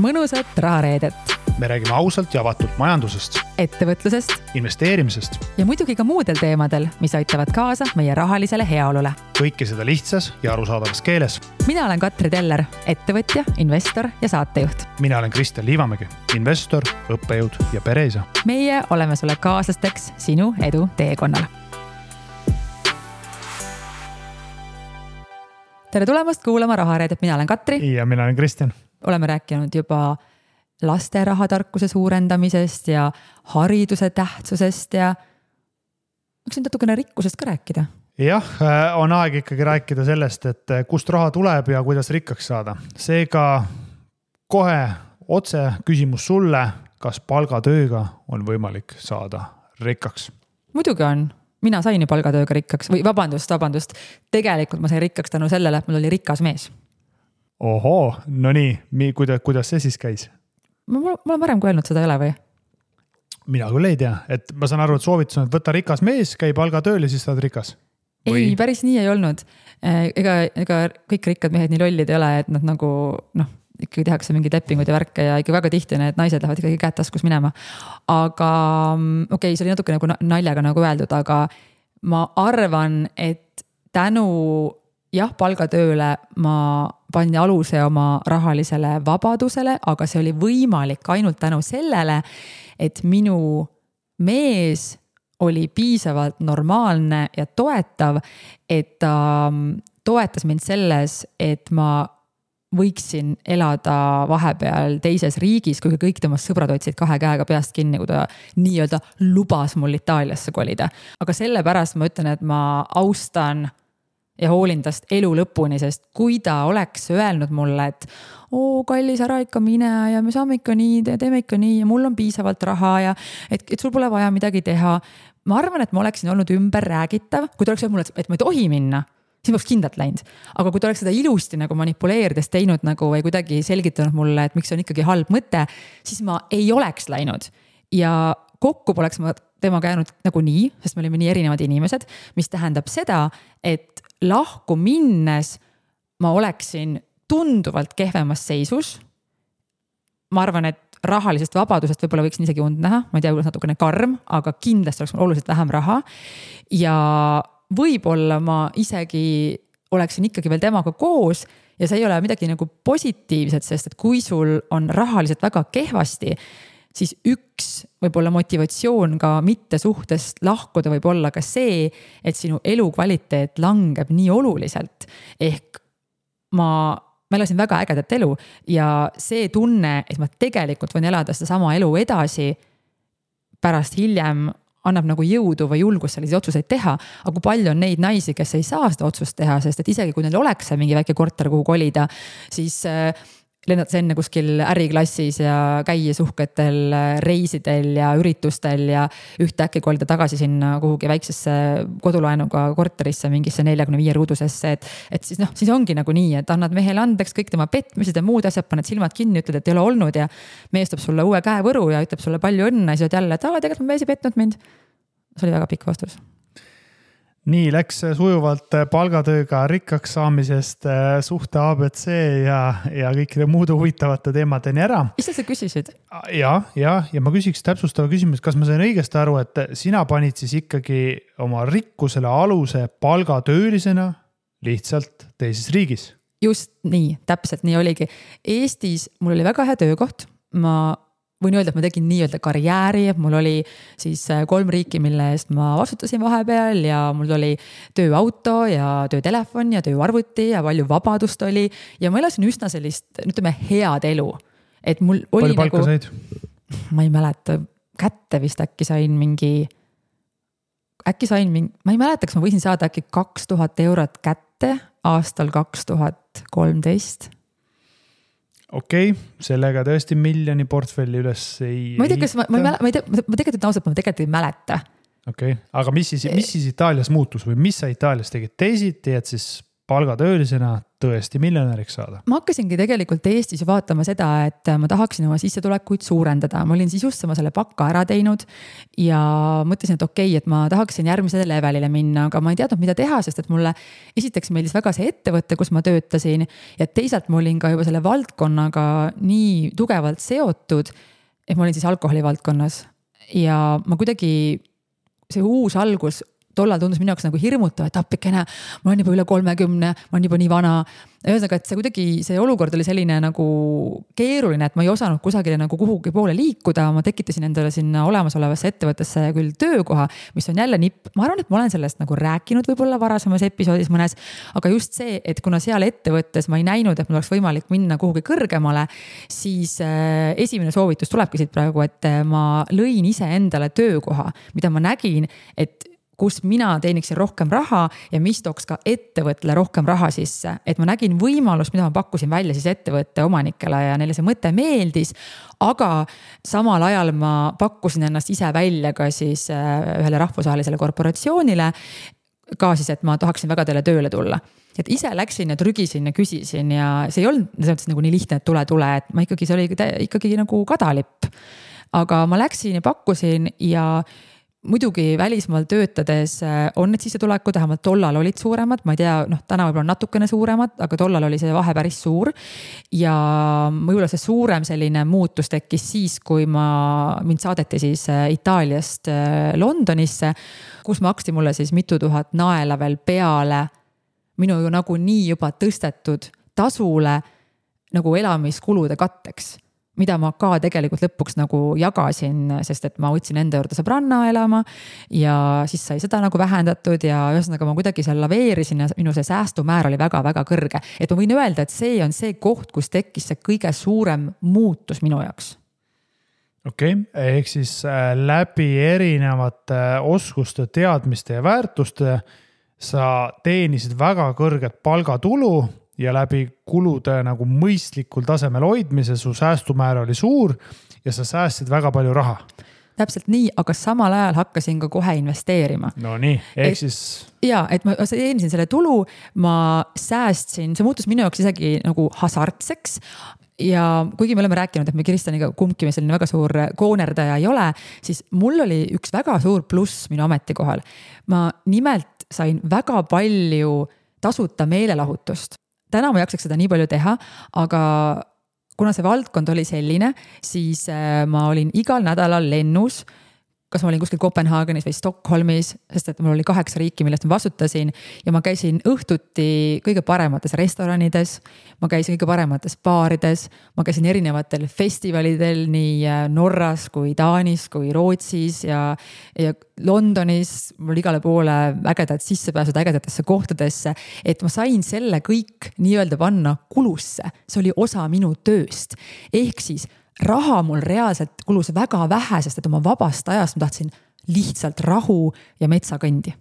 mõnusat rahareedet. Me räägime ausalt ja avatult majandusest, ettevõtlusest investeerimisest ja muidugi ka muudel teemadel, mis aitavad kaasa meie rahalisele heaolule. kõike seda lihtsas ja arusaadavas keeles. Mina olen Katri Teller, ettevõtja, investor ja saatejuht. Mina olen Kristjan Liivamägi, investor, õppejõud ja pereisa. Meie oleme sulle kaaslasteks sinu edu teekonnal. Tere tulemast kuulama rahareedet. Mina olen Katri. Ja mina olen Kristjan. Oleme rääkinud juba laste rahatarkuse suurendamisest ja hariduse tähtsusest ja võiks nüüd natukene rikkusest ka rääkida. Jah, on aeg ikkagi rääkida sellest, et kust raha tuleb ja kuidas rikkaks saada. Seega kohe otse küsimus sulle, kas palgatööga on võimalik saada rikkaks? Muidugi on. Mina sain ju palgatööga rikkaks või vabandust. Tegelikult ma sain rikkaks tänu sellele, et mul oli rikas mees. Ohoo, no nii, kuidas see siis käis? Ma olen varem kui öelnud, seda ei ole või? Mina küll ei tea, et ma saan aru, et soovitus on, et võtta rikas mees, käi palgatööl ja siis saad rikas. Või? Ei, päris nii ei olnud. Ega kõik rikkad mehed nii lollid ei ole, et nad nagu, ikkagi tehakse mingid lepingud ja värke ja ikka väga tihti need naised lähevad ikkagi käed taskus minema. Aga okei, see oli natuke nagu naljaga nagu öeldud, aga ma arvan, et tänu palgatööle ma panin aluse oma rahalisele vabadusele, aga see oli võimalik ainult tänu sellele, et minu mees oli piisavalt normaalne ja toetav, et ta toetas mind selles, et ma võiksin elada vahepeal teises riigis, kui kõik temast sõbrad otsid 2 käega peast kinni, kui ta nii-öelda lubas mul Itaaliasse kolida. Aga sellepärast ma ütlen, et ma austan ja hoolin tast elu lõpuni, sest kui ta oleks öelnud mulle, et kallis, ära ikka mine ja me saame ikka nii, teeme ikka nii ja mul on piisavalt raha ja et sul pole vaja midagi teha. Ma arvan, et ma oleksin olnud ümber räägitav, kui ta oleks öelnud mulle, et ma ei tohi minna, siis ma oleks kindlalt läinud. Aga kui ta oleks seda ilusti nagu manipuleerides teinud nagu või kuidagi selgitanud mulle, et miks on ikkagi halb mõte, siis ma ei oleks läinud. Ja kokku poleks ma temaga jäänud nagu nii, sest me olime nii erinevad inimesed, mis tähendab seda, et lahku minnes ma oleksin tunduvalt kehvemas seisus. Ma arvan, et rahalisest vabadusest võib-olla võiks isegi und näha. Ma ei tea, kuidas natukene karm, aga kindlasti oleks mul oluliselt vähem raha. Ja võib-olla ma isegi oleksin ikkagi veel temaga koos ja see ei ole midagi nagu positiivset, sest et kui sul on rahaliselt väga kehvasti, siis üks võib-olla motivatsioon ka mitte suhtest lahkuda võib olla ka see, et sinu elukvaliteet langeb nii oluliselt. Ehk ma elasin väga ägedat elu ja see tunne, et ma tegelikult võin elada seda sama elu edasi pärast hiljem annab nagu jõudu või julgust selliseid otsuseid teha. Aga kui palju on neid naisi, kes ei saa seda otsust teha, sest et isegi kui neil oleks mingi väike korter, kuhu kolida, siis lennates enne kuskil äriklassis ja käia suhketel reisidel ja üritustel ja ühtäkki kolida tagasi sinna kuhugi väiksesse kodulaenuga korterisse mingisse 45 ruudusesse, et siis ongi nagu nii, et annad mehele andeks kõik tema petmised ja muud asjad, paned silmad kinni, ütled, et ei ole olnud ja mees toob sulle uue käevõru ja ütleb sulle palju õnne ja siis jälle, et tegelikult ma mees ei petnud mind. See oli väga pikk vastus. Nii läks sujuvalt palgatööga rikkaks saamisest suhte ABC ja kõikide muude huvitavate teemadeni ära. Ise sa küsisid? Ja ma küsiks täpsustava küsimus, kas ma sain õigesti aru, et sina panid siis ikkagi oma rikkusele aluse palgatöölisena lihtsalt teises riigis? Just nii, täpselt nii oligi. Eestis mul oli väga hea töökoht. Ma võin öelda, et ma tegin nii-öelda karjääri, mul oli siis 3 riiki, mille eest ma vastutasin vahepeal ja mul oli tööauto ja töötelefon ja tööarvuti ja palju vabadust oli ja ma elasin üsna sellist, ütleme, head elu. Et mul oli palju palka said? Ma ei mäleta, kätte vist äkki sain mingi, ma ei mäleta, kas ma võisin saada äkki 2000 eurot kätte aastal 2013. Okei, sellega tõesti miljoni portfelli üles ei... Ma ei tea, kas ma tegelikult ei mäleta. Okei, aga mis siis Itaalias muutus või mis sa Itaalias tegid? Teisiti, et siis palgatöölisena tõesti miljonäriks saada? Ma hakkasingi tegelikult Eestis vaatama seda, et ma tahaksin oma sissetulekuid suurendada. Ma olin siis just selle pakka ära teinud ja mõtlesin, et okei, et ma tahaksin järgmisele levelile minna, aga ma ei teadnud, mida teha, sest et mulle esiteks meeldis väga see ettevõte, kus ma töötasin ja teisalt ma olin ka juba selle valdkonnaga nii tugevalt seotud, et ma olin siis alkoholi valdkonnas ja ma kuidagi see uus algus tollal tundus minu jaoks nagu hirmutav, et appikene, ma olen juba üle 30, ma olen juba nii vana. Ühesõnaga, et see kuidagi, see olukord oli selline nagu keeruline, et ma ei osanud kusagile nagu kuhugi poole liikuda. Ma tekitasin endale sinna olemasolevasse ettevõttesse küll töökoha, mis on jälle nipp. Ma arvan, et ma olen sellest nagu rääkinud võib-olla varasemas episoodis mõnes, aga just see, et kuna seal ettevõttes ma ei näinud, et mul oleks võimalik minna kuhugi kõrgemale, siis esimene soovitus tulebki siit praegu, et ma lõin ise endale töökoha, mida ma nägin, et kus mina teeniksin rohkem raha ja mis tooks ka ettevõttele rohkem raha sisse. Et ma nägin võimalust, mida ma pakkusin välja siis ettevõtte omanikele ja neile see mõte meeldis, aga samal ajal ma pakkusin ennast ise välja ka siis ühele rahvusvahelisele korporatsioonile, ka siis, et ma tahaksin väga teile tööle tulla. Et ise läksin ja trügisin ja küsisin ja see ei olnud nagu nii lihtne, et tule, et ma ikkagi, see oli ikkagi nagu kadalipp. Aga ma läksin ja pakkusin ja muidugi välismaal töötades on need sissetulekud, vähemalt tollal olid suuremad, ma ei tea, täna võib-olla natukene suuremad, aga tollal oli see vahe päris suur ja võib-olla see suurem selline muutus tekkis siis, kui mind saadeti siis Itaaliast Londonisse, kus maksti mulle siis mitu tuhat naela veel peale minu nagu nii juba tõstetud tasule nagu elamiskulude katteks, mida ma ka tegelikult lõpuks nagu jagasin, sest et ma võtsin enda juurde sõbranna elama ja siis sai seda nagu vähendatud ja ühesõnaga ma kuidagi seal laveerisin ja minu see säästumäär oli väga-väga kõrge. Et ma võin öelda, et see on see koht, kus tekkis see kõige suurem muutus minu jaoks. Okei, ehk siis läbi erinevate oskuste, teadmiste ja väärtuste sa teenisid väga kõrget palgatulu ja läbi kulude nagu mõistlikul tasemel hoidmise su säästumäär oli suur ja sa säästsid väga palju raha. Täpselt nii, aga samal ajal hakkasin ka kohe investeerima. No nii, ehk siis... Jaa, et ma teenisin selle tulu, ma säästsin, see muutus minu jaoks isegi nagu hasartseks ja kuigi me oleme rääkinud, et me Kristjaniga kumbki me selline väga suur koonerdaja ei ole, siis mul oli üks väga suur pluss minu ametikohal. Ma nimelt sain väga palju tasuta meelelahutust. Täna ma jaksaks seda nii palju teha, aga kuna see valdkond oli selline, siis ma olin igal nädalal lennus, kas ma olin kuskil Kopenhaagenis või Stockholmis, sest et mul oli 8 riiki, millest ma vastutasin ja ma käisin õhtuti kõige paremates restoranides, ma käisin kõige paremates baarides, ma käisin erinevatel festivalidel nii Norras kui Taanis kui Rootsis ja Londonis, mul igale poole ägedad sissepääsud ägedatesse kohtadesse, et ma sain selle kõik nii-öelda panna kulusse, see oli osa minu tööst, ehk siis raha mul reaalselt kulus väga vähe, sest et oma vabast ajast ma tahtsin lihtsalt rahu ja metsakõndi.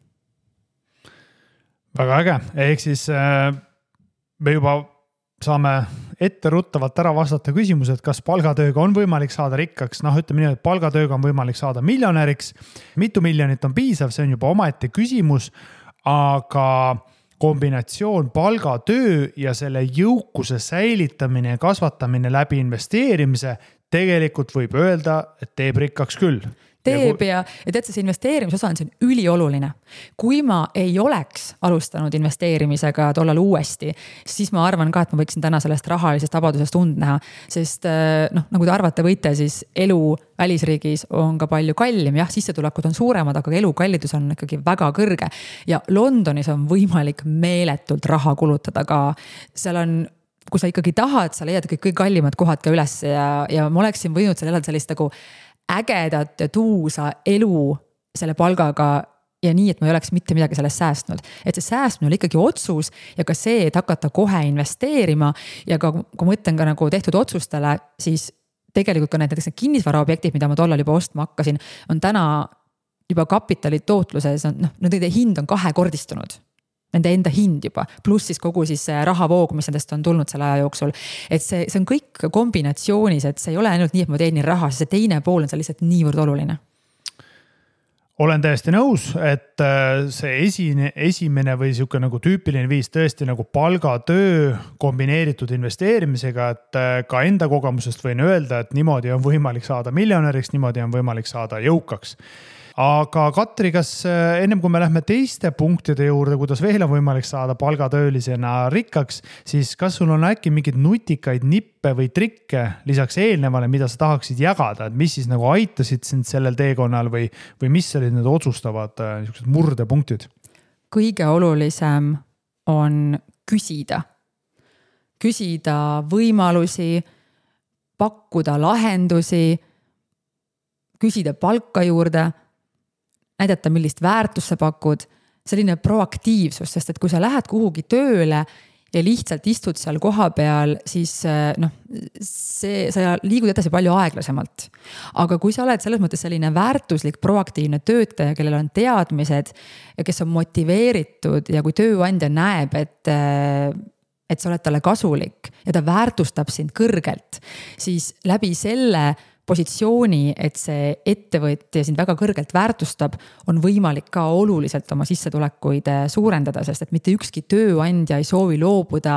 Väga äge, ehk siis me juba saame etteruttavalt ära vastata küsimused, kas palgatööga on võimalik saada rikkaks. Ütleme nii, et palgatööga on võimalik saada miljonäriks. Mitu miljonit on piisav, see on juba omaette küsimus, aga kombinatsioon palgatöö ja selle jõukuse säilitamine ja kasvatamine läbi investeerimise tegelikult võib öelda, et teeb rikkaks küll. Teeb ja tead, see investeerimisosa on siin ülioluline. Kui ma ei oleks alustanud investeerimisega tollal uuesti, siis ma arvan ka, et ma võiksin täna sellest rahalisest vabadusest und näha, sest nagu te arvate võite, siis elu välisriigis on ka palju kallim, jah, sissetulekud on suuremad, aga elukallidus on ikkagi väga kõrge ja Londonis on võimalik meeletult raha kulutada ka. Seal on, kui sa ikkagi tahad, sa leiad kõik kallimad kohad ka üles ja ma oleksin võinud seal elada sellist nagu ägedat ja tuusa elu selle palgaga ja nii, et ma ei oleks mitte midagi sellest säästnud. Et see säästmine oli ikkagi otsus ja ka see, et hakata kohe investeerima ja ka, kui ma mõtlen ka nagu tehtud otsustele, siis tegelikult ka näiteks kinnisvaraobjektid, mida ma tollal juba ostma hakkasin, on täna juba kapitali tootluses, nende hind on 2-kordistunud. Nende enda hind juba, pluss siis kogu siis rahavoog, mis nendest on tulnud selle aja jooksul. Et see on kõik kombinatsioonis, et see ei ole ainult nii, et ma teenin raha, see teine pool on see lihtsalt niivõrd oluline. olen täiesti nõus, et see esimene või siuke nagu tüüpiline viis tõesti nagu palgatöö kombineeritud investeerimisega, et ka enda kogemusest võin öelda, et niimoodi on võimalik saada miljonäriks, niimoodi on võimalik saada jõukaks. Aga Katri, kas ennem kui me lähme teiste punktide juurde, kuidas veel on võimalik saada palgatöölisena rikkaks, siis kas sul on äkki mingeid nutikaid nippe või trikke lisaks eelnevale, mida sa tahaksid jagada, et mis siis nagu aitasid sind sellel teekonnal või mis olid need otsustavad murdepunktid? Kõige olulisem on küsida võimalusi, pakkuda lahendusi, küsida palka juurde, näidata, millist väärtust sa pakud, selline proaktiivsus, sest et kui sa lähed kuhugi tööle ja lihtsalt istud seal koha peal, siis sa liigud edasi palju aeglasemalt. Aga kui sa oled selles mõttes selline väärtuslik, proaktiivne töötaja, kellel on teadmised ja kes on motiveeritud ja kui tööandja näeb, et sa oled talle kasulik ja ta väärtustab sind kõrgelt, siis läbi selle positsiooni, et see ettevõtja sind väga kõrgelt väärtustab, on võimalik ka oluliselt oma sissetulekuid suurendada, sest et mitte ükski tööandja ei soovi loobuda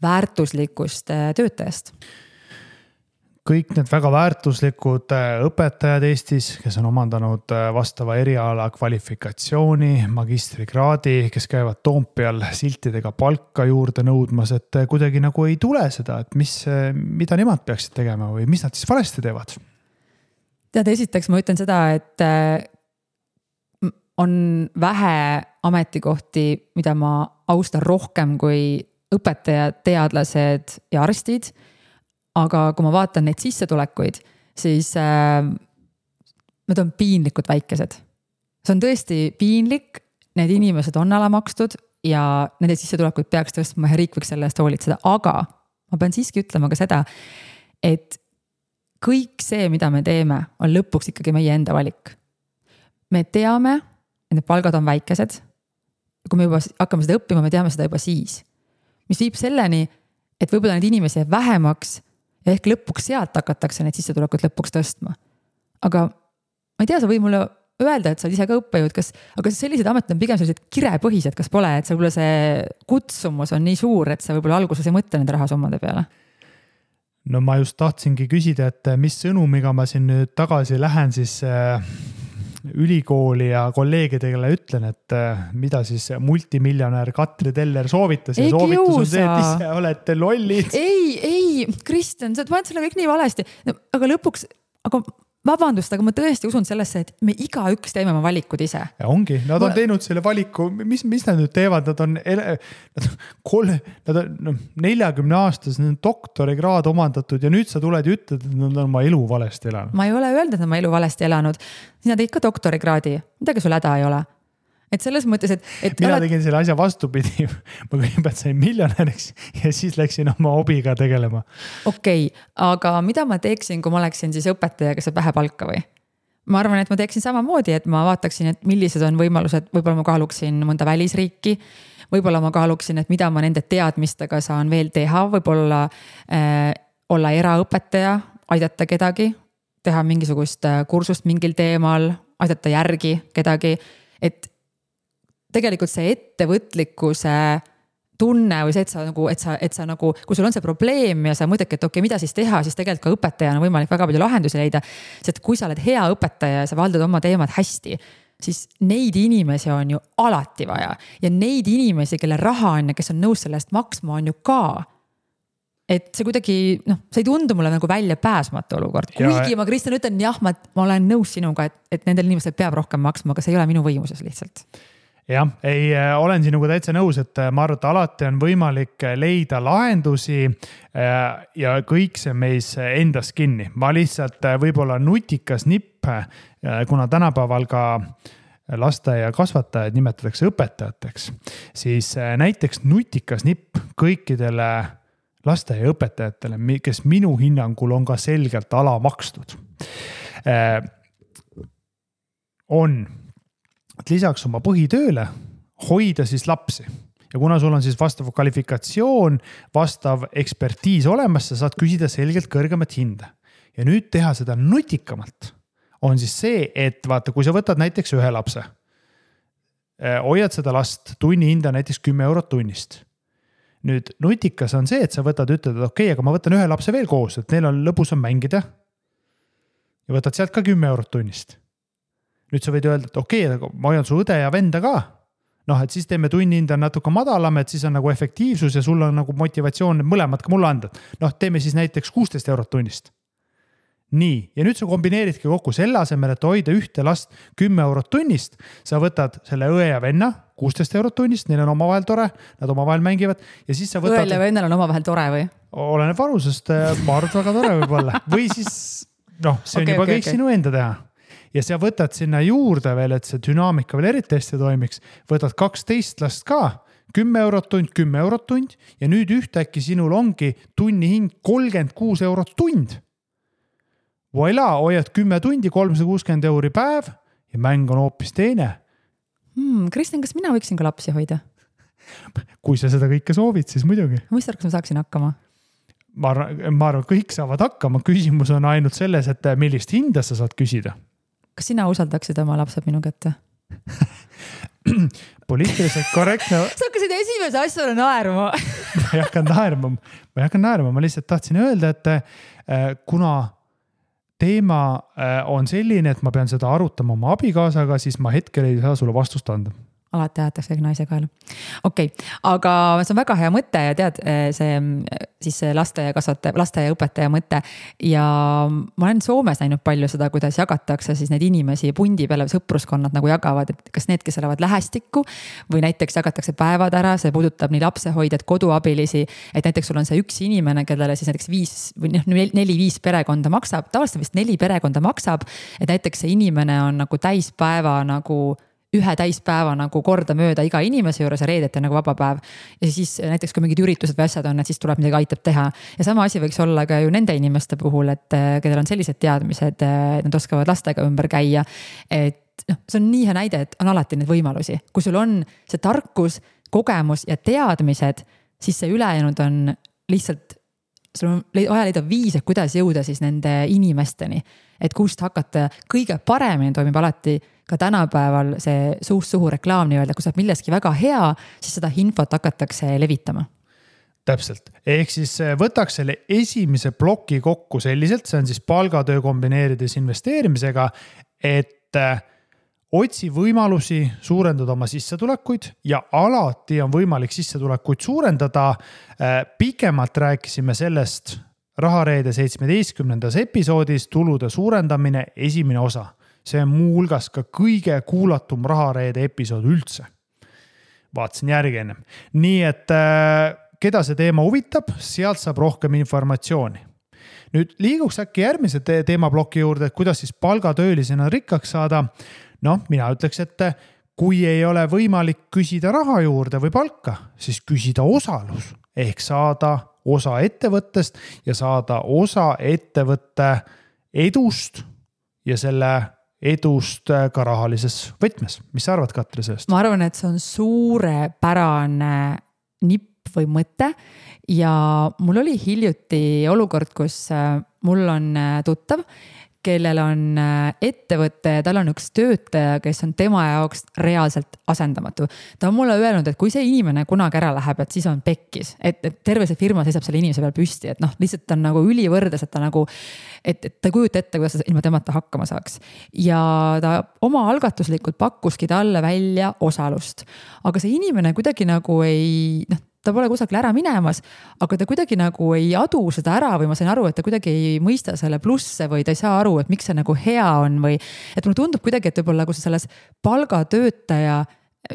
väärtuslikust töötajast. Kõik need väga väärtuslikud õpetajad Eestis, kes on omandanud vastava eriala kvalifikatsiooni, magistrikraadi, kes käivad Toompeal siltidega palka juurde nõudmas, et kuidagi nagu ei tule seda, et mida nemad peaksid tegema või mis nad siis valesti teevad? Tead, esiteks ma ütlen seda, et on vähe ametikohti, mida ma austan rohkem kui õpetajad, teadlased ja arstid. Aga kui ma vaatan neid sissetulekuid, siis need on piinlikud väikesed. See on tõesti piinlik, need inimesed on alamakstud ja nende sissetulekuid peaks tõstma ja riik võiks selle eest hoolitseda. Aga ma pean siiski ütlema ka seda, et kõik see, mida me teeme, on lõpuks ikkagi meie enda valik. Me teame, et need palgad on väikesed. Kui me juba hakkame seda õppima, me teame seda juba siis. Mis viib selleni, et võib-olla need inimesi jääb vähemaks ja ehk lõpuks sealt hakatakse need sissetulekud lõpuks tõstma. Aga ma ei tea, sa võid mulle öelda, et sa oled ise ka õppejõud, aga sellised ametid on pigem sellised kirepõhised, kas pole, et võib-olla see kutsumus on nii suur, et sa võib-olla alguses ei mõtle nende rahasummade peale? No ma just tahtsingi küsida, et mis sõnumiga ma siin nüüd tagasi lähen siis ülikooli ja kolleegidele ütlen, et mida siis multimiljonär Katri Teller soovitas. Ja soovitus on see, et ise olete lollid. Ei, Kristjan, sa paned selle kõik nii valesti. Aga lõpuks, vabandust, aga ma tõesti usun sellesse, et me igaüks teeme oma valikud ise. Ja ongi, nad on teinud selle valiku, mis nad nüüd teevad, nad on 40 aastas, need on doktorikraad omandatud ja nüüd sa tuled ja ütled, et nad on oma elu valesti elanud. Ma ei ole öelnud, et nad oma elu valesti elanud. Sina teid ka doktorikraadi, midagi sul häda ei ole. Et selles mõttes, et mina tegin selle asja vastupidi. Ma kõigepealt sain miljonäriks ja siis läksin oma hobiga tegelema. Okei, aga mida ma teeksin, kui ma oleksin siis õpetaja, kes saab vähe palka või? Ma arvan, et ma teeksin samamoodi, et ma vaataksin, et millised on võimalused, võib-olla ma kaaluksin mõnda välisriiki, võib-olla ma kaaluksin, et mida ma nende teadmistega saan veel teha, võib-olla olla eraõpetaja, aidata kedagi, teha mingisugust kursust mingil teemal, aidata järgi kedagi, et tegelikult see ettevõtlikkuse tunne või see, et sa nagu, kui sul on see probleem ja sa mõtled, et okei, mida siis teha, siis tegelikult ka õpetajana on võimalik väga palju lahendusi leida. Sest kui sa oled hea õpetaja ja sa valdad oma teemad hästi, siis neid inimesi on ju alati vaja. Ja neid inimesi, kelle raha on ja kes on nõus sellest maksma, on ju ka. Et see kuidagi, see ei tundu mulle nagu välja pääsmatu olukord. Kuigi ma, Kristjan, ütlen, jah, ma olen nõus sinuga, et nendel inimestel peab rohkem maksma, aga see ei ole minu võimuses lihtsalt. Jah, olen sinuga täitsa nõus, et ma arvan, et alati on võimalik leida lahendusi ja kõik see meis endast kinni. Ma lihtsalt võib-olla nutikas nipp, kuna tänapäeval ka lasteaia kasvatajaid nimetatakse õpetajateks, siis näiteks nutikas nipp kõikidele lasteaia õpetajatele, kes minu hinnangul on ka selgelt alamakstud, on et lisaks oma põhitööle hoida siis lapsi. Ja kuna sul on siis vastav kvalifikatsioon, vastav ekspertiis olemas, sa saad küsida selgelt kõrgemat hinda. Ja nüüd teha seda nutikamalt on siis see, et vaata, kui sa võtad näiteks ühe lapse, hoiad seda last, tunni hinda näiteks 10 eurot tunnist. Nüüd nutikas on see, et sa ütled, et okei, aga ma võtan ühe lapse veel koos, et neil on lõbus on mängida ja võtad sealt ka 10 eurot tunnist. Nüüd sa võid öelda, et okei, aga ma hoian su õde ja venda ka. Noh, et siis teeme tunni hinda natuke madalam, et siis on nagu efektiivsus ja sul on nagu motivatsioon mõlemad ka mulle anda. Noh, teeme siis näiteks 16 eurot tunnist. Nii, ja nüüd sa kombineeridki kokku selle asemel, et hoida ühte last 10 eurot tunnist, sa võtad selle õe ja venna 16 eurot tunnist, neil on omavahel tore, nad omavahel mängivad ja siis sa võtad... Õel ja vennal on omavahel tore või? Oleneb vanusest, ma arvan, väga tore võib olla. Või siis, noh, see on juba kõik sinu enda teha. Ja sa võtad sinna juurde veel, et see dünaamika veel eriti hästi toimiks, võtad 12 last ka, 10 eurot tund ja nüüd ühtäkki sinul ongi tunni hind 36 eurot tund. Voila, hoiad 10 tundi, 360 euri päev ja mäng on hoopis teine. Kristjan, kas mina võiksin ka lapsi hoida? Kui sa seda kõike soovid, siis muidugi. Mis arvaks, ma saaksin hakkama? Ma arvan, kõik saavad hakkama. Küsimus on ainult selles, et millist hinda sa saad küsida. Kas sina usaldaksid oma lapsed minu kätte? Poliitiliselt korrektne. Sa hakkasid esimese asjale naerma. Ma ei hakka naerma. Ma lihtsalt tahtsin öelda, et kuna teema on selline, et ma pean seda arutama oma abikaasaga, siis ma hetkel ei saa sulle vastust anda. Alati ajatakse kõik naise kaela. Okei, aga see on väga hea mõte ja tead, see laste ja õpetaja mõte. Ja ma olen Soomes näinud palju seda, kuidas jagatakse siis neid inimesi pundi peale sõpruskonnad nagu jagavad, et kas need, kes elavad lähestikku või näiteks jagatakse päevad ära, see puudutab nii lapsehoidjad, koduabilisi, et näiteks sul on see üks inimene, kellele siis näiteks 4-5 perekonda maksab, tavaliselt vist 4 perekonda maksab, et näiteks see inimene on nagu täispäeva nagu ühe täispäeva nagu korda mööda iga inimese juures ja reedeti nagu vaba päev. Ja siis näiteks kui mingid üritused või asjad on, et siis tuleb midagi aitab teha. Ja sama asi võiks olla ka ju nende inimeste puhul, et kellel on sellised teadmised, nad oskavad lastega ümber käia. Et see on nii hea näide, et on alati need võimalusi. Kui sul on see tarkus, kogemus ja teadmised, siis see ülejäänud on lihtsalt, sul on vaja leida viis, et kuidas jõuda siis nende inimesteni. Et kust hakata kõige paremini toimib alati ka tänapäeval see suust suhu reklaam nii öelda, kui saab milleski väga hea, siis seda infot hakatakse levitama. Täpselt. Ehk siis võtaks selle esimese ploki kokku selliselt, see on siis palgatöö kombineerides investeerimisega, et otsi võimalusi suurendada oma sissetulekuid ja alati on võimalik sissetulekuid suurendada. Pikemalt rääkisime sellest Rahareede 17. episoodis tulude suurendamine esimene osa. See on muu hulgas ka kõige kuulatum Rahareede episood üldse. Vaatasin järgi ennem. Nii et keda see teema huvitab, sealt saab rohkem informatsiooni. Nüüd liiguks äkki järgmise teemaploki juurde, et kuidas siis palgatöölisena rikkaks saada. Mina ütleks, et kui ei ole võimalik küsida raha juurde või palka, siis küsida osalus ehk saada osa ettevõttest ja saada osa ettevõtte edust ja selle edust ka rahalises võtmes. Mis sa arvad, Katri, sellest? Ma arvan, et see on suurepärane nipp või mõte ja mul oli hiljuti olukord, kus mul on tuttav, kellel on ettevõte ja tal on üks töötaja, kes on tema jaoks reaalselt asendamatu. Ta on mulle öelnud, et kui see inimene kunagi ära läheb, et siis on pekkis, et terve see firma seisab selle inimese peal püsti, et lihtsalt on nagu ülivõrdes, et ta nagu, et ta ei kujuta ette, kuidas ta ilma temata hakkama saaks. Ja ta oma algatuslikult pakkuski talle välja osalust. Aga see inimene kuidagi nagu ei, ta pole kusagil ära minemas, aga ta kuidagi nagu ei adu seda ära või ma sain aru, et ta kuidagi ei mõista selle plusse või ta ei saa aru, et miks see nagu hea on või et mulle tundub kuidagi, et võib-olla kui sa selles palgatöötaja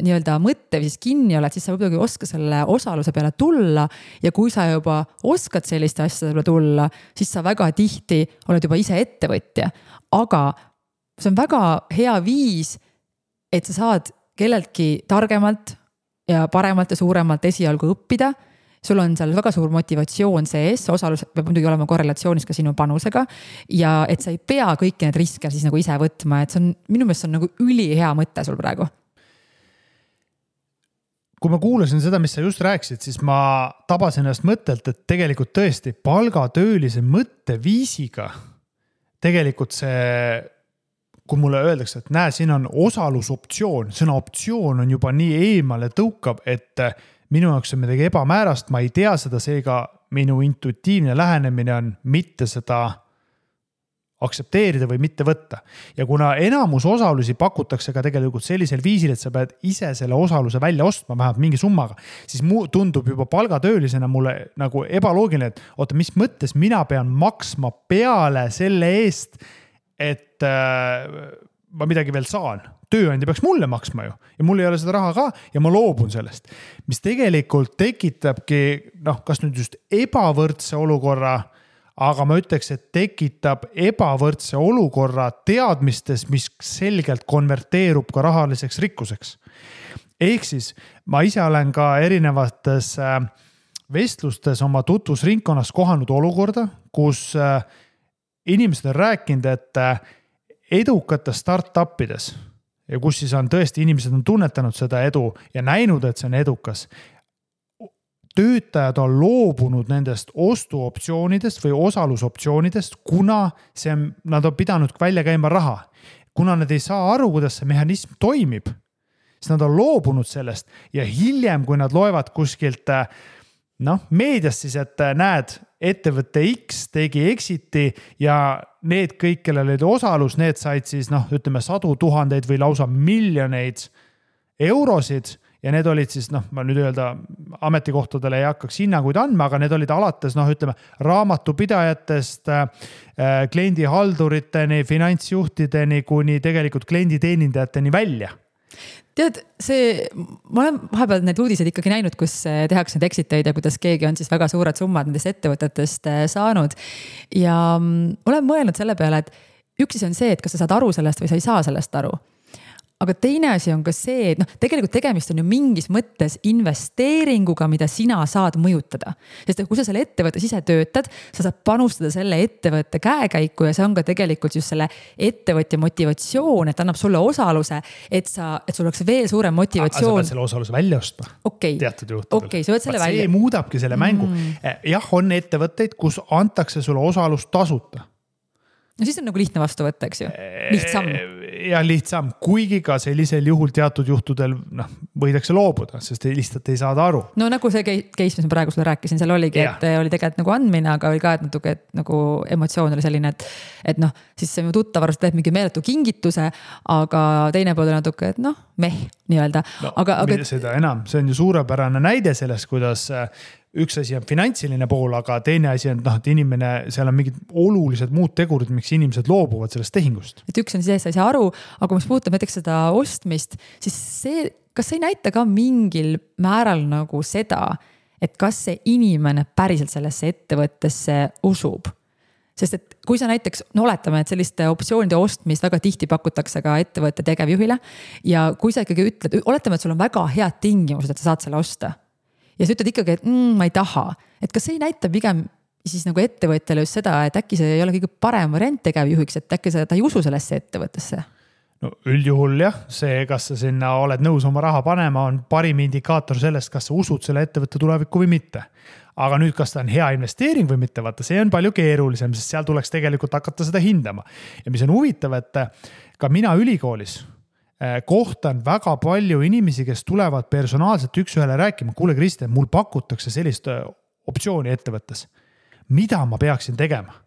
nii-öelda mõtte või siis kinni oled, siis sa võib-olla oska selle osaluse peale tulla ja kui sa juba oskad selliste asjade peale tulla, siis sa väga tihti oled juba ise ettevõtja. Aga see on väga hea viis, et sa saad kelleltki targemalt ja paremalt ja suuremalt esialgu õppida. Sul on seal väga suur motivatsioon sees, osalus peab muidugi olema korrelatsioonis ka sinu panusega ja et sa ei pea kõiki need riske siis nagu ise võtma, et see on, minu meelest on nagu ülihea mõte sul praegu. Kui ma kuulasin seda, mis sa just rääkisid, siis ma tabasin ennast mõttelt, et tegelikult tõesti palgatöölise mõtteviisiga tegelikult see kui mulle öeldakse, et näe, siin on osalusoptsioon, sõna optsioon on juba nii eemale tõukab, et minu jaoks on midagi ebamäärast, ma ei tea seda, seega minu intuitiivne lähenemine on mitte seda aktsepteerida või mitte võtta. Ja kuna enamus osalusi pakutakse ka tegelikult sellisel viisil, et sa pead ise selle osaluse välja ostma vähemalt mingi summaga, siis tundub juba palgatöölisena mulle nagu ebaloogiline, et oota, mis mõttes mina pean maksma peale selle eest, et ma midagi veel saan. Tööandja peaks mulle maksma ju ja mul ei ole seda raha ka ja ma loobun sellest. Mis tegelikult tekitabki, kas nüüd just ebavõrdse olukorra, aga ma ütleks, et tekitab ebavõrdse olukorra teadmistes, mis selgelt konverteerub ka rahaliseks rikkuseks. Ehk siis ma ise olen ka erinevates vestlustes oma tutvusringkonnas kohanud olukorda, kus inimesed on rääkinud, et edukates startupides ja kus siis on tõesti inimesed on tunnetanud seda edu ja näinud, et see on edukas. Töötajad on loobunud nendest ostuoptsioonidest või osalusoptsioonidest, kuna nad on pidanud välja käima raha. Kuna nad ei saa aru, kuidas see mehhanism toimib, siis nad on loobunud sellest ja hiljem, kui nad loevad kuskilt meediast siis, et näed, ettevõtte X tegi exiti ja need kõik, kellel oli osalus, need said siis ütleme 100,000 või lausa miljoneid eurosid ja need olid siis, ma nüüd öelda ametikohtadele ei hakkaks hinnanguid andma, aga need olid alates, ütleme raamatupidajatest, kliendihalduriteni, finantsjuhtideni kuni tegelikult klienditeenindajateni välja. Tead, ma olen vahepeal need uudised ikkagi näinud, kus tehakse need exiteid ja kuidas keegi on siis väga suured summad nendest ettevõtetest saanud. Ja olen mõelnud selle peale, et üks on see, et kas sa saad aru sellest või sa ei saa sellest aru. Aga teine asi on ka see, et tegelikult tegemist on ju mingis mõttes investeeringuga, mida sina saad mõjutada. Sest kui sa selle ettevõttes ise töötad, sa saad panustada selle ettevõtte käekäiku ja see on ka tegelikult just selle ettevõtja motivatsioon, et annab sulle osaluse, et sul oleks veel suurem motivatsioon. Sa pead selle osaluse välja ostma. Teatud juhtudel. Okay, sa pead selle välja. See muudabki selle mängu. Jah, on ettevõtteid, kus antakse sulle osalus tasuta. No siis on nagu lihtne vastu võtta, eks ju? Lihtsam. Ja lihtsam, kuigi ka sellisel juhul teatud juhtudel võidakse loobuda, sest lihtsalt ei saada aru. No nagu see case, mis ma praegu sulle rääkisin, seal oligi, et oli tegelikult nagu andmine, aga oli ka, et natuke nagu emotsioon oli selline, et siis see tuttavarust teeb mingi meeletu kingituse, aga teine pool on natuke, et nii-öelda. Aga seda enam, see on ju suurepärane näide sellest, kuidas üks asi on finantsiline pool, aga teine asi on, et inimene, seal on mingid olulised muud tegurid, miks inimesed loobuvad sellest tehingust. Et üks on siis, sa ei saa aru, aga mis puudutab näiteks seda ostmist, siis kas see ei näita ka mingil määral nagu seda, et kas see inimene päriselt sellesse ettevõttesse usub? Sest et kui sa näiteks, oletame, et selliste optsioonide ostmist väga tihti pakutakse ka ettevõtte tegevjuhile ja kui sa ikkagi ütled, oletame, et sul on väga head tingimused, et sa saad selle osta ja sa ütled ikkagi, et ma ei taha, et kas see ei näita pigem siis nagu ettevõtjale just seda, et äkki see ei ole kõige parem variant tegevjuhiks, et äkki ta ei usu sellesse ettevõttesse? No üldjuhul jah, see, kas sa sinna oled nõus oma raha panema, on parim indikaator sellest, kas sa usud selle ettevõtte tulevikku või mitte. Aga nüüd, kas ta on hea investeering või mitte, vaata, see on palju keerulisem, sest seal tuleks tegelikult hakata seda hindama. Ja mis on huvitav, et ka mina ülikoolis kohtan väga palju inimesi, kes tulevad personaalselt üks-ühele rääkima. Kuule, Kristjan, mul pakutakse sellist optsiooni ettevõttes. Mida ma peaksin tegema?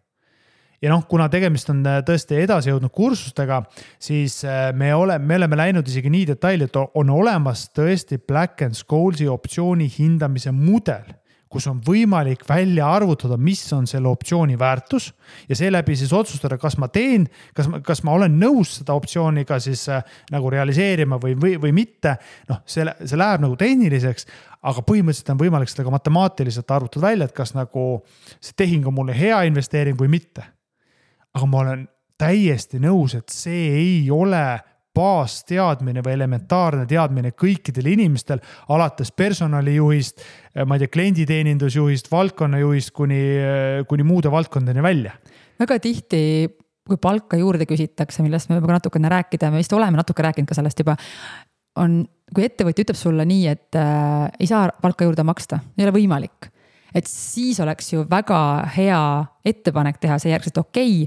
Ja kuna tegemist on tõesti edasi jõudnud kursustega, siis me oleme läinud isegi nii detaili, et on olemas tõesti Black & Schoolsi optsiooni hindamise mudel, kus on võimalik välja arvutada, mis on selle optsiooni väärtus ja seeläbi siis otsustada, kas ma teen, kas ma olen nõus seda optsiooniga siis nagu realiseerima või mitte. See läheb nagu tehniliseks, aga põhimõtteliselt on võimalik seda ka matemaatiliselt arvutada välja, et kas nagu see tehing on mulle hea investeering või mitte. Aga ma olen täiesti nõus, et see ei ole baasteadmine või elementaarne teadmine kõikidel inimestel, alates personalijuhist, ma ei tea, klienditeenindusjuhist, valdkonnajuhist kuni muude valdkondadeni välja. Väga tihti, kui palka juurde küsitakse, millest me võime natukene rääkida, me vist oleme natuke rääkinud ka sellest juba, kui ettevõtja ütleb sulle nii, et ei saa palka juurde maksta, ei ole võimalik. Et siis oleks ju väga hea ettepanek teha see järgselt okei,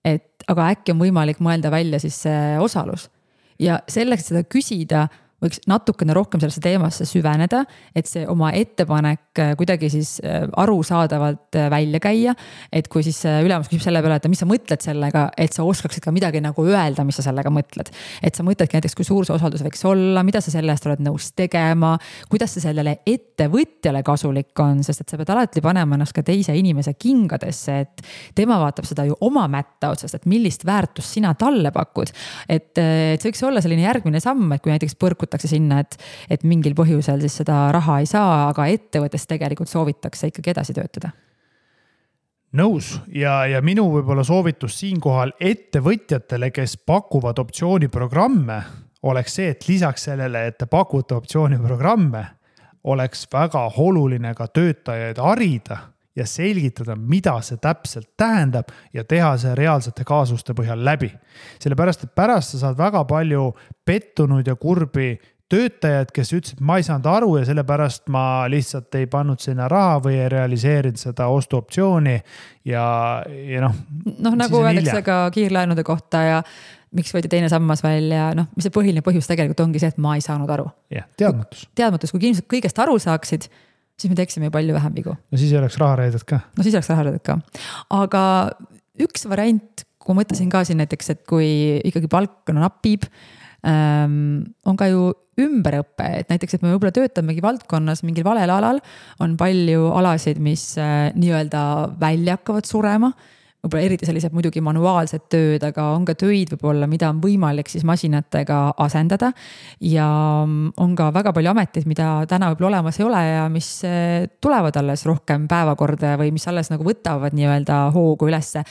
et aga äkki on võimalik mõelda välja siis see osalus. Ja selleks, et seda küsida, võiks natukene rohkem sellesse teemasse süveneda, et see oma ettepanek kuidagi siis arusaadavalt välja käia, et kui siis ülemus küsib selle peale, et mis sa mõtled sellega, et sa oskaksid ka midagi nagu öelda, mis sa sellega mõtled. Et sa mõtledki näiteks, kui suur see osaldus võiks olla, mida sa selle eest oled nõus tegema, kuidas see sellele ettevõtjale kasulik on, sest et sa pead alati panema ennast ka teise inimese kingadesse, et tema vaatab seda ju oma mätta otsast, et millist väärtust sina talle pakud. Et see võiks olla selline järgmine samm, et kui näiteks põrkutakse sinna, et mingil põhjusel siis seda raha ei saa, aga ettevõttes tegelikult soovitakse ikkagi edasi töötada. Nõus ja minu võib-olla soovitus siinkohal ettevõtjatele, kes pakuvad optsiooniprogramme, oleks see, et lisaks sellele, et te pakute optsiooniprogramme, oleks väga oluline ka töötajaid harida ja selgitada, mida see täpselt tähendab ja teha see reaalsete kaasuste põhjal läbi. Sellepärast, et pärast sa saad väga palju pettunud ja kurbi töötajad, kes ütlesid, ma ei saanud aru ja sellepärast ma lihtsalt ei pannud sinna raha või ei realiseerinud seda ostuoptsiooni ja nagu öeldakse ka kiirlaenude kohta ja miks võeti teine sammas välja, mis see põhiline põhjus tegelikult ongi see, et ma ei saanud aru. Jah, teadmatus. Teadmatus, kui inimesed kõigest aru saaksid, siis me teeksime palju vähem vigu. No siis ei oleks rahareedet ka. Aga üks variant, kui mõtlesin ka siin näiteks, et kui ikkagi palk napib, on ka ju ümberõppe, et näiteks, et me võib-olla töötamegi valdkonnas mingil valel alal, on palju alasid, mis nii-öelda välja hakkavad surema, võib-olla eriti sellised muidugi manuaalsed tööd, aga on ka töid võib-olla, mida on võimalik siis masinatega asendada ja on ka väga palju ameteid, mida täna võib-olla olemas ei ole ja mis tulevad alles rohkem päevakorda või mis alles nagu võtavad nii-öelda hoogu ülesse.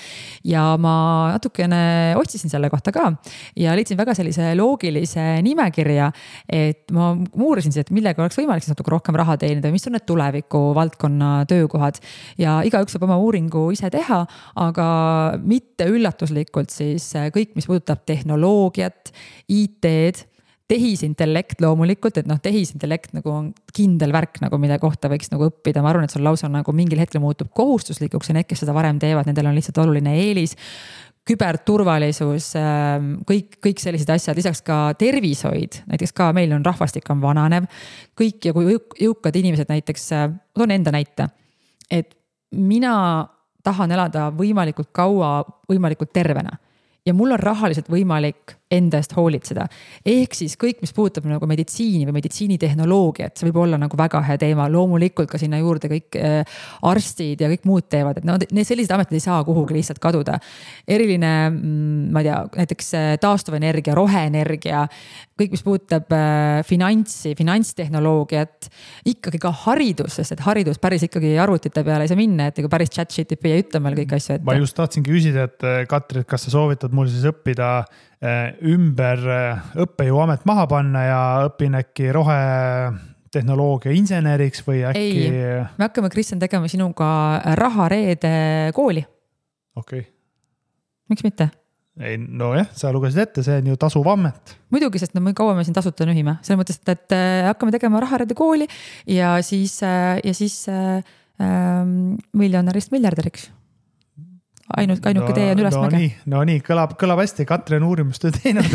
Ja ma natukene otsisin selle kohta ka ja leidsin väga sellise loogilise nimekirja, et ma uurisin see, et millega oleks võimalik siis natuke rohkem raha teenida, mis on need tuleviku valdkonna töökohad ja igaüks saab oma uuringu ise teha, aga mitte üllatuslikult siis kõik, mis puudutab tehnoloogiat, IT-d, tehisintellekt loomulikult, et tehisintellekt nagu on kindel värk, nagu mille kohta võiks nagu õppida. Ma arvan, et see on lausa nagu mingil hetkel muutub kohustuslikuks ja need, kes seda varem teevad, nendel on lihtsalt oluline eelis. Küberturvalisus, kõik sellised asjad, lisaks ka tervishoid, näiteks ka meil on rahvastik on vananev, kõik ja kui jõukad inimesed näiteks, toon enda näite, et mina tahan elada võimalikult kaua, võimalikult tervena ja mul on rahaliselt võimalik enda eest hoolitseda. Ehk siis kõik, mis puudutab nagu meditsiini või meditsiinitehnoloogiat, see võib olla nagu väga hea teema. Loomulikult ka sinna juurde kõik arstid ja kõik muud teevad, et need sellised ametid ei saa kuhugi lihtsalt kaduda. Eriline, ma ei tea, näiteks taastuvenergia, roheenergia, kõik, mis puudutab finantstehnoloogiat, ikkagi ka haridus, sest et haridus päris ikkagi arvutite peale ei saa minna, et päris ChatGPT ei ütle meil kõik asju. Ma just tahtsingi küsida, et Katri, et kas sa soovitad mul siis õppida ümber õppejõuamet maha panna ja õpin äkki rohetehnoloogia inseneriks või äkki... Ei, me hakkame, Kristjan, tegema sinuga rahareede kooli. Okei. Miks mitte? Ei, no jah, sa lugesid ette, see on ju tasuv amet. Muidugi, sest me kaua me siin tasuta nühime. Selle mõttes, et hakkame tegema rahareede kooli ja siis miljonärist miljardäriks. Ainuke tee on ülesmäge. No nii, kõlab hästi. Katri on uurimustöö teinud.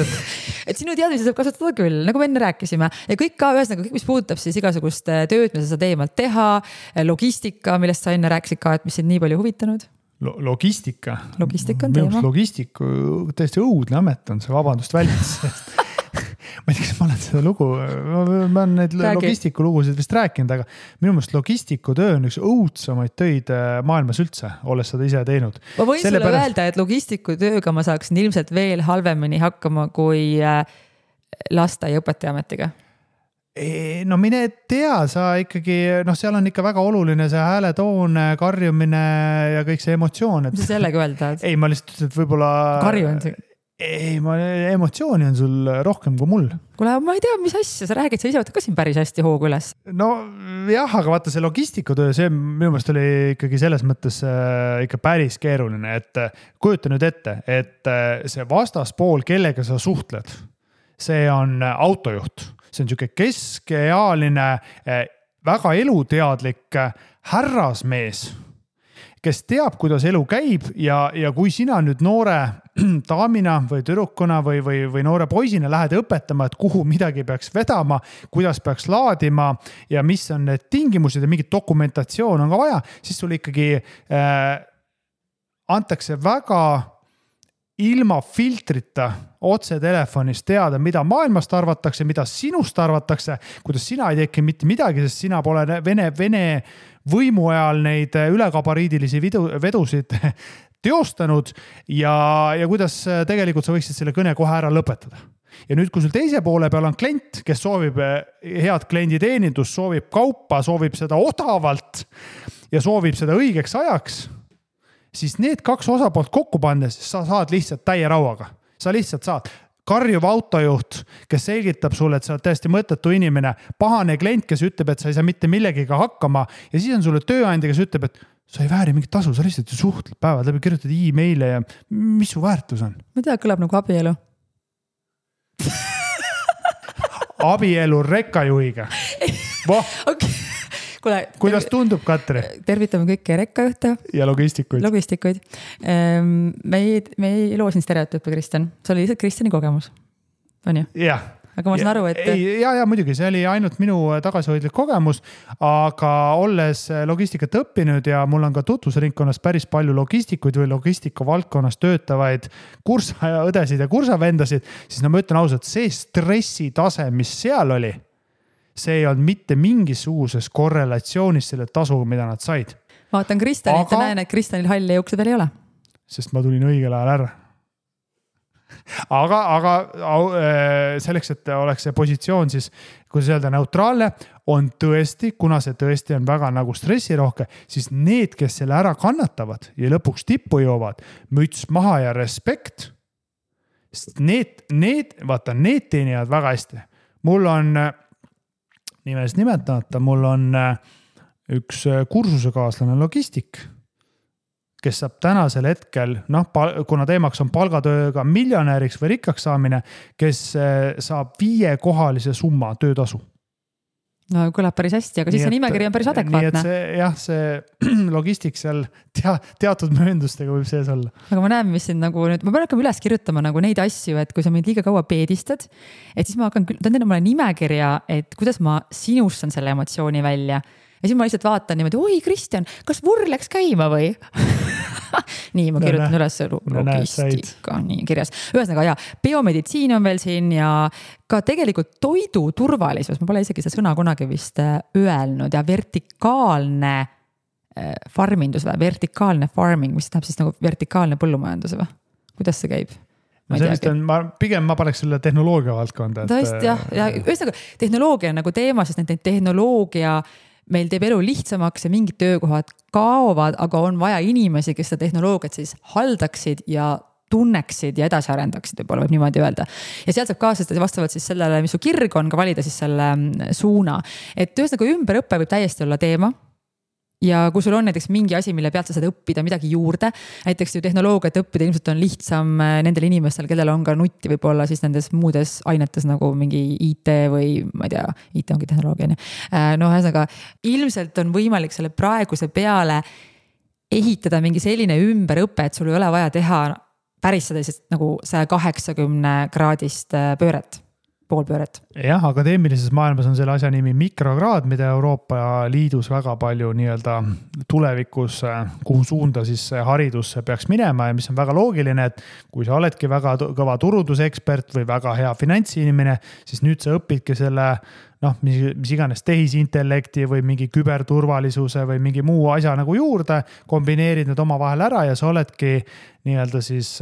Et sinu teadmisi saab kasutada küll, nagu me enne rääkisime. Ja kõik ka ühesõnaga, kõik mis puudutab siis igasugust tööd, mis sa saad eemalt teha, logistika, millest sa enne rääkisid ka, et mis sind nii palju huvitanud. Logistika? Logistika on teema. Logistiku tõesti õudne amet on see, vabandust väljas. Ma ei tea, kas ma olen seda lugu, ma olen neid logistiku lugusid vist rääkinud, aga minu meelest logistiku töö on üks õudsamaid töid maailmas üldse, olles seda ise teinud. Ma võin sulle öelda, et logistiku tööga ma saaksin ilmselt veel halvemini hakkama kui lasteaiaõpetaja ametiga. No mine tea, sa ikkagi, seal on ikka väga oluline see hääletoon, karjumine ja kõik see emotsioon. Mis sa sellega öelda? Ei, ma lihtsalt ütlen, et võib-olla... Karjun see? Ei, emotsiooni on sul rohkem kui mul. Kuule, ma ei tea, mis asja sa räägid, sa ise võtad ka siin päris hästi hoogu üles. No jah, aga vaata see logistikutöö, see minu meelest oli ikkagi selles mõttes ikka päris keeruline, et kujuta nüüd ette, et see vastaspool, kellega sa suhtled, see on autojuht. See on niisugune keskealine, väga eluteadlik härrasmees, kes teab, kuidas elu käib ja kui sina nüüd noore daamina või tüdrukuna või noore poisina lähed õpetama, et kuhu midagi peaks vedama, kuidas peaks laadima ja mis on need tingimused ja mingit dokumentatsioon on ka vaja, siis sul ikkagi antakse väga ilma filtrita otse telefonis teada, mida maailmast arvatakse, mida sinust arvatakse, kuidas sina ei teki mitte midagi, sest sina pole Vene võimu ajal neid ülekabariidilisi vedusid teostanud ja kuidas tegelikult sa võiksid selle kõne kohe ära lõpetada. Ja nüüd, kui sul teise poole peal on klient, kes soovib head klienditeenindust, soovib kaupa, soovib seda odavalt ja soovib seda õigeks ajaks, siis need kaks osapoolt kokku pannes sa saad lihtsalt täie rauaga. Sa lihtsalt saad karjuv autojuht, kes selgitab sulle, et sa oled täiesti mõttetu inimene, pahane klient, kes ütleb, et sa ei saa mitte millegiga hakkama ja siis on sulle tööandja, kes ütleb, et sa ei vääri mingit tasu, sa lihtsalt suhtled päevad läbi, kirjutad e-maile ja mis su väärtus on? Ma tea, kõlab nagu abielu. Abielu rekkajuhiga. Okay. Kule, kuidas tundub, Katri? Tervitame kõiki rekkajuhte. Ja logistikuid. Me ei loo siin stereotüüpe, Kristjan. See oli lihtsalt Kristjani kogemus. On ju? Jah. Aga ma saan aru, et... Ja muidugi, see oli ainult minu tagasihoidlik kogemus, aga olles logistikat õppinud ja mul on ka tutvusringkonnas päris palju logistikuid või logistika valdkonnas töötavaid kursaõdesid ja kursavendasid, siis ma ütlen ausalt, see stressitase, mis seal oli, see ei olnud mitte mingisuguses korrelatsioonis selle tasu, mida nad said. Vaatan Kristjanit ja näen, et Kristjanil halli juukse veel ei ole. Sest ma tulin õigel ajal ära. Aga selleks, et oleks see positsioon siis, kui see öelda neutraalne, on tõesti, kuna see tõesti on väga nagu stressirohke, siis need, kes selle ära kannatavad ja lõpuks tippu joovad, müts maha ja respekt, need teenivad väga hästi. Mul on, nimest nimetamata, mul on üks kursusekaaslane logistik, kes saab tänasel hetkel, kuna teemaks on palgatööga miljonäriks või rikkaks saamine, kes saab 5-kohalise summa töötasu. No kõlab päris hästi, aga siis see nimekiri on päris adekvaatne. Nii et see logistik seal teatud mööndustega võib sees olla. Aga ma näen, mis siin nagu nüüd, ma pean hakkama üles kirjutama nagu neid asju, et kui sa mind liiga kaua peedistad, et siis ma hakkan, tähendab mulle nimekirja, et kuidas ma sinustan selle emotsiooni välja. Ja siis ma lihtsalt vaatan niimoodi, oi Kristjan, kas vurr läks käima või? Nii, ma kirjutan üles logistika, nii kirjas. Ühesõnaga, biomeditsiin on veel siin ja ka tegelikult toidu turvalisus, ma pole isegi seda sõna kunagi vist öelnud ja vertikaalne farmindus või vertikaalne farming, mis tähendab siis nagu vertikaalne põllumajandus või? Kuidas see käib? Pigem ma paneks selle tehnoloogia valdkonda. Tõesti, jah. Ja ühesõnaga, tehnoloogia on nagu teema, sest need tehnoloogia meil teeb elu lihtsamaks ja mingid töökohad kaovad, aga on vaja inimesi, kes seda tehnoloogiat siis haldaksid ja tunneksid ja edasi arendaksid, võib niimoodi öelda. Ja sealt saab kaasastada vastavalt siis sellele, mis su kirg on, ka valida siis selle suuna. Et ühesõnaga ümberõppe võib täiesti olla teema. Ja kui sul on näiteks mingi asi, mille pealt sa saad õppida midagi juurde, näiteks ju tehnoloogiat õppida ilmselt on lihtsam nendel inimestel, kellel on ka nutti võib-olla siis nendes muudes ainetes nagu mingi IT või ma ei tea, IT ongi tehnoloogia. Ühesõnaga, ilmselt on võimalik selle praeguse peale ehitada mingi selline ümberõpe, et sul ei ole vaja teha päris seda nagu 180 kraadist pööret. Poolpööret. Jah, akadeemilises maailmas on selle asja nimi mikrokraad, mida Euroopa Liidus väga palju nii-öelda tulevikus, kuhu suunda siis haridus peaks minema ja mis on väga loogiline, et kui sa oledki väga kõva turundusekspert või väga hea finantsinimene, siis nüüd sa õpidki selle mis iganes tehisintellekti või mingi küberturvalisuse või mingi muu asja nagu juurde, kombineerid need oma vahel ära ja sa oledki nii-öelda siis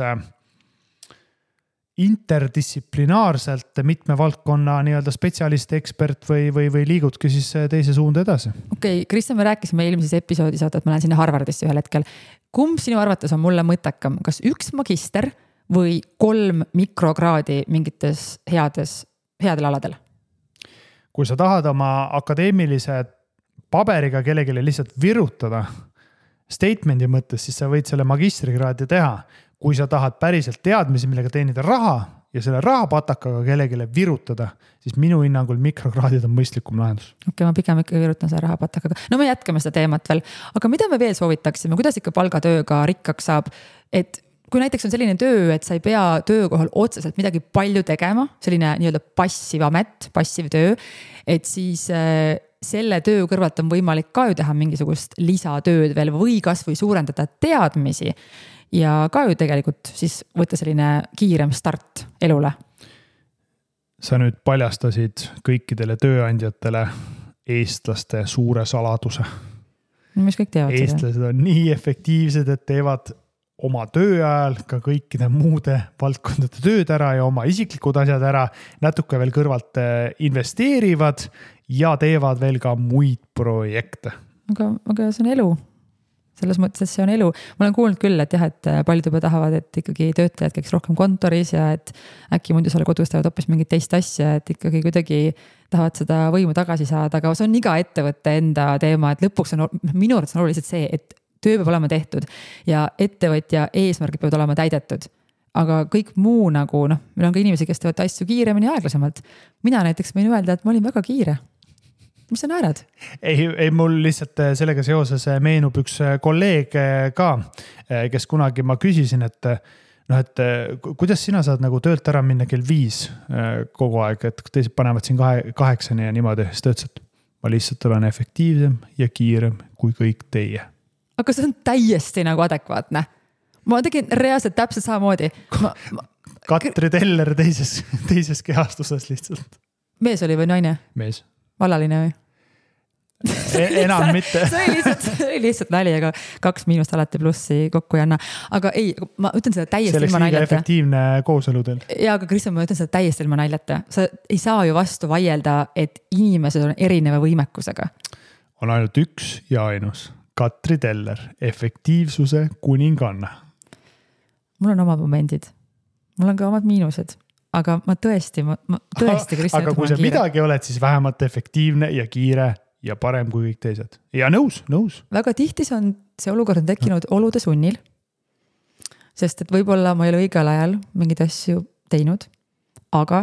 interdistsiplinaarselt mitme valdkonna nii-öelda spetsialist, ekspert või liigudki siis teise suunda edasi. Okei, Kristjan, me rääkisime eelmises episoodis, et ma lähen sinna Harvardisse ühel hetkel. Kumb sinu arvates on mulle mõttekam? Kas 1 magister või 3 mikrokraadi mingites headel aladel? Kui sa tahad oma akadeemilise paberiga kellelegi lihtsalt virutada statemendi mõttes, siis sa võid selle magistrikraadi teha. Kui sa tahad päriselt teadmisi, millega teenida raha ja selle rahapatakaga kellegile virutada, siis minu hinnangul mikrokraadid on mõistlikum lahendus. Okei, ma pigem ikka virutan selle rahapatakaga. No me jätkame seda teemat veel, aga mida me veel soovitaksime, kuidas ikka palgatööga rikkaks saab, et kui näiteks on selline töö, et sa ei pea töökohal otseselt midagi palju tegema, selline nii-öelda passiv amet, passiv töö, et siis selle töö kõrvalt on võimalik ka ju teha mingisugust lisatööd veel või kas või suurendada teadmisi ja ka ju tegelikult siis võtta selline kiirem start elule. Sa nüüd paljastasid kõikidele tööandjatele eestlaste suure saladuse. Mis kõik teavad seda? Eestlased on nii efektiivsed, et teevad oma töö ajal ka kõikide muude valdkondade tööd ära ja oma isiklikud asjad ära, natuke veel kõrvalt investeerivad ja teevad veel ka muid projekte. Aga see on elu. Selles mõttes, et see on elu. Ma olen kuulnud küll, et jah, et paljud juba tahavad, et ikkagi töötajad käiks rohkem kontoris ja et äkki muidu selle kodus teevad hoopis mingit teist asja, et ikkagi kuidagi tahavad seda võimu tagasi saada, aga see on iga ettevõtte enda teema, et lõpuks on minu arvates on oluliselt see, et töö peab olema tehtud ja ettevõtja eesmärgid peavad olema täidetud. Aga kõik muu nagu, meil on ka inimesi, kes teevad asju kiiremini ja aeglasemalt. Mina näiteks võin öelda, et ma olin väga kiire. Mis sa naerad? Ei, mul lihtsalt sellega seoses meenub üks kolleeg ka, kes kunagi ma küsisin, et kuidas sina saad nagu töölt ära minna kell 5 kogu aeg, et teised panevad siin 8 ja niimoodi. Siis ta ütles, et ma lihtsalt olen efektiivsem ja kiirem kui kõik teie. Aga see on täiesti nagu adekvaatne. Ma tegin reaalselt täpselt samamoodi. Katri Teller teises kehastuses lihtsalt. Mees oli või naine? Mees. Vallaline või? Enam mitte. see oli lihtsalt nali, aga 2 miinust alati plussi kokku ei anna. Aga ei, ma ütlen seda täiesti ilma naljata. Selleks liiga efektiivne kooseludel. Ja, aga Kristjan, ma ütlen seda täiesti ilma naljata. Sa ei saa ju vastu vaielda, et inimesed on erineva võimekusega. On ainult üks ja ainus. Katri Teller, efektiivsuse kuninganna. Mul on omad momendid. Mul on ka omad miinused. Aga ma tõesti Kristjan. Aga kui sa midagi oled, siis vähemalt efektiivne ja kiire ja parem kui kõik teised. Ja nõus. Väga tihti see olukord on tekkinud olude sunnil. Sest et võib-olla ma ei ole õigel ajal mingid asju teinud. Aga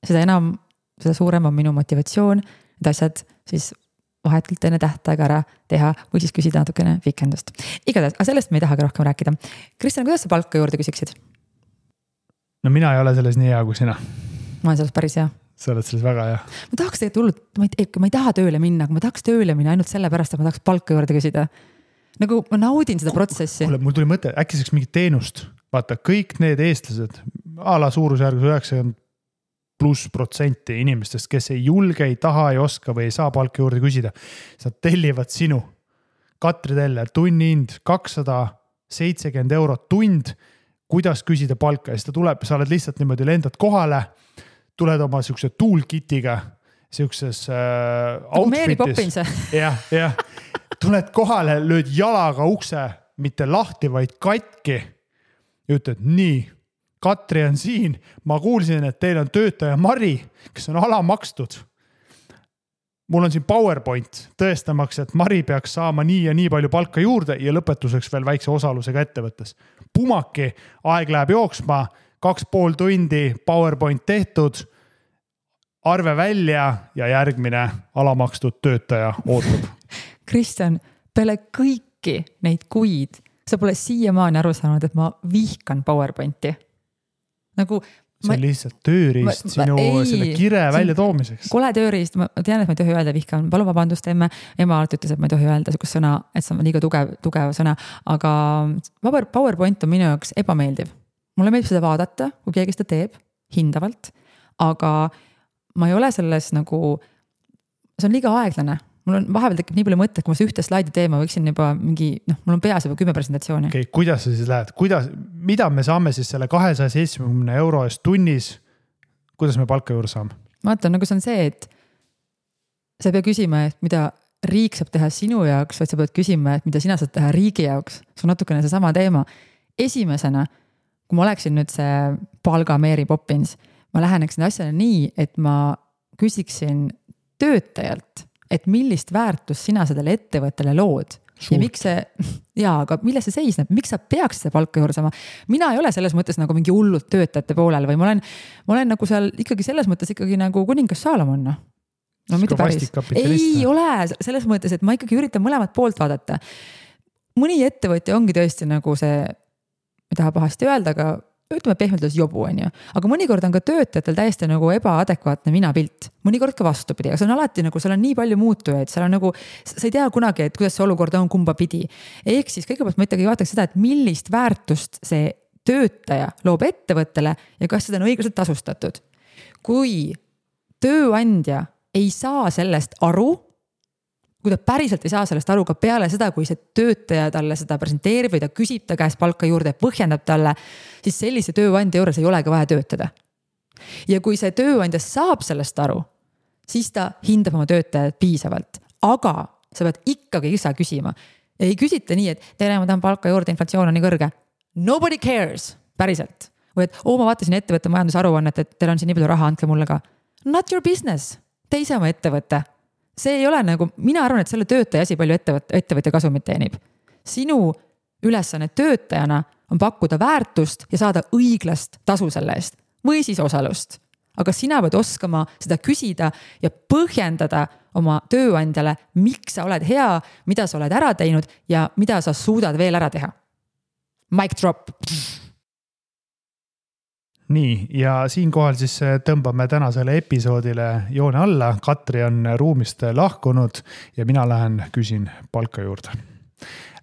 seda suurem on minu motivatsioon, et asjad siis vahetult enne tähtaega ära teha või siis küsida natukene vikendust. Igatahes, aga sellest me ei tahagi rohkem rääkida. Kristjan, kuidas sa palka juurde küsiksid? No mina ei ole selles nii hea kui sina. Ma olen selles päris hea. Sa oled selles väga hea. Ma tahaks tegelikult hullult, ma ei taha tööle minna, aga ma tahaks tööle minna ainult selle pärast, et ma tahaks palka juurde küsida. Nagu ma naudin seda protsessi. Mul tuli mõte, äkki saaks mingit teenust. Vaata, kõik need eestlased, ala suurusjärgus 90+% inimestest, kes ei julge, ei taha, ei oska või ei saa palka juurde küsida. Nad tellivad sinu. Katri Teller, tunnihind 270 eurot tund, kuidas küsida palka. Ja siis ta tuleb, sa oled lihtsalt niimoodi lendad kohale, tuled oma siukse toolkitiga, siukses outfitis. Jah. Tuled kohale, lööd jalaga ukse, mitte lahti, vaid katki. Ja ütled, nii. Katri on siin, ma kuulsin, et teil on töötaja Mari, kes on alamakstud. Mul on siin PowerPoint tõestamaks, et Mari peaks saama nii ja nii palju palka juurde ja lõpetuseks veel väikse osalusega ettevõttes. Pumaki, aeg läheb jooksma, 2,5 tundi PowerPoint tehtud, arve välja ja järgmine alamakstud töötaja ootab. Kristjan, peale kõiki neid kuid, sa pole siiamaani aru saanud, et ma vihkan PowerPointi. Nagu, see on lihtsalt tööriist sinu selle kire välja toomiseks. Kole tööriist, ma tean, et ma ei tohi öelda vihkan, palun vabandust emme. Ema alati ütles, et ma ei tohi öelda sukust sõna, et see on liiga tugev sõna, aga PowerPoint on minu jaoks ebameeldiv. Mulle meeldib seda vaadata, kui keegi seda teeb, hindavalt, aga ma ei ole selles nagu, see on liiga aeglane. Mul on vahepeal tekib nii palju mõtteid, kui ma see ühte slaidi teema võiksin juba mingi, mul on peas juba 10 presentatsiooni. Okay, kuidas sa siis lähed? Mida me saame siis selle 270 euro eest tunnis? Kuidas me palka juurde saame? Vaata, nagu see on see, et sa ei pea küsima, et mida riik saab teha sinu jaoks, vaid sa pead küsima, et mida sina saad teha riigi jaoks. See on natukene see sama teema. Esimesena, kui ma oleksin nüüd see palga Mary Poppins, ma läheneksin asjale nii, et ma küsiksin töötajalt, et millist väärtust sina sellele ettevõttele lood. ja miks see, aga milles see seisneb, miks sa peaks seda palka juurde saama? Mina ei ole selles mõttes nagu mingi hullud töötajate poolel või ma olen nagu seal ikkagi selles mõttes ikkagi nagu kuningas Saalomon. No mitte päris. Ei ole selles mõttes, et ma ikkagi üritan mõlemat poolt vaadata. Mõni ettevõtja ongi tõesti nagu see, ei taha pahasti öelda, aga ütleme pehmelt jobu, on ju. Aga mõnikord on ka töötajatel täiesti nagu ebaadekvaatne minapilt. Mõnikord ka vastupidi, aga see on alati nagu, seal on nii palju muutujaid, seal on nagu, sa ei tea kunagi, et kuidas see olukord on kumba pidi. Ehk siis kõigepealt ma ikkagi vaataks seda, et millist väärtust see töötaja loob ettevõttele ja kas seda on õiglaselt tasustatud. Kui tööandja ei saa sellest aru, kui ta päriselt ei saa sellest aru ka peale seda, kui see töötaja talle seda presenteerib või ta küsib ta käest palka juurde ja põhjendab talle, siis sellise tööandja juures ei olegi vaja töötada. Ja kui see tööandja saab sellest aru, siis ta hindab oma töötajad piisavalt. Aga sa pead ikkagi ise küsima. Ei küsita nii, et tere, ma tahan palka juurde, inflatsioon on nii kõrge. Nobody cares, päriselt. Või et ma vaatasin ettevõtte majandusaruannet, et teil on siin nii palju raha, andke mulle ka. Not your business, te ise oma ettevõtte. See ei ole nagu, mina arvan, et selle töötaja asi palju ettevõtja kasumit teenib. Sinu ülesanne töötajana on pakkuda väärtust ja saada õiglast tasu selle eest või siis osalust. Aga sina pead oskama seda küsida ja põhjendada oma tööandjale, miks sa oled hea, mida sa oled ära teinud ja mida sa suudad veel ära teha. Mic drop. Nii, ja siinkohal siis tõmbame tänasele episoodile joone alla. Katri on ruumist lahkunud ja mina lähen küsin palka juurde.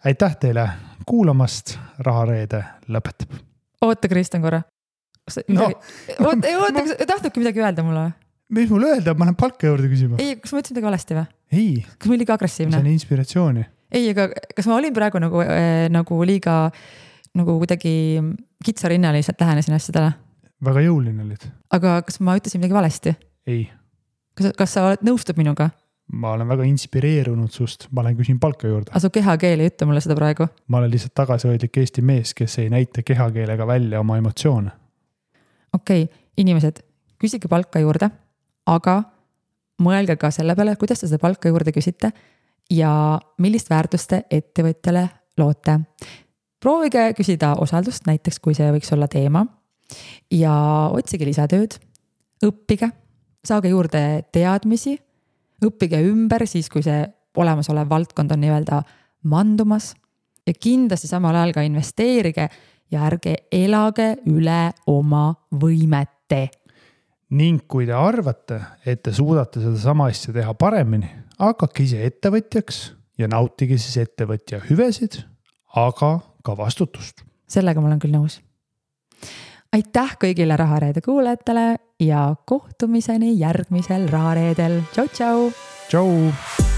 Aitäh teile kuulamast, Rahareede lõpetab. Oota, Kristjan korra. Tahtnudki midagi öelda mulle? Mis mul öelda, ma lähen palka juurde küsima. Ei, kas ma ütlesin midagi valesti või? Ei. Kas ma olin liiga agressiivne? See on inspiratsiooni. Ei, aga kas ma olin praegu nagu liiga nagu kuidagi kitsarinnaliselt lähenesin asjadele? Väga jõuline olid. Aga kas ma ütlesin midagi valesti? Ei. Kas sa nõustud minuga? Ma olen väga inspireerunud sust. Ma olen küsin palka juurde. Asu kehakeel ei ütle mulle seda praegu. Ma olen lihtsalt tagasihoidlik Eesti mees, kes ei näita kehakeelega välja oma emotsioone. Okei, inimesed, küsige palka juurde, aga mõelge ka selle peale, kuidas te seda palka juurde küsite ja millist väärtust te ettevõtjale loote. Proovige küsida osaldust, näiteks kui see võiks olla teema. Ja otsige lisatööd, õppige, saage juurde teadmisi, õppige ümber siis, kui see olemasolev valdkond on nii-öelda mandumas ja kindlasti samal ajal ka investeerige ja ärge elage üle oma võimete. Ning kui te arvate, et te suudate seda sama asja teha paremini, hakake ise ettevõtjaks ja nautige siis ettevõtja hüvesid, aga ka vastutust. Sellega ma olen küll nõus. Aitäh kõigile Rahareede kuulajatele ja kohtumiseni järgmisel Rahareedel. Tšau, tšau! Tšau!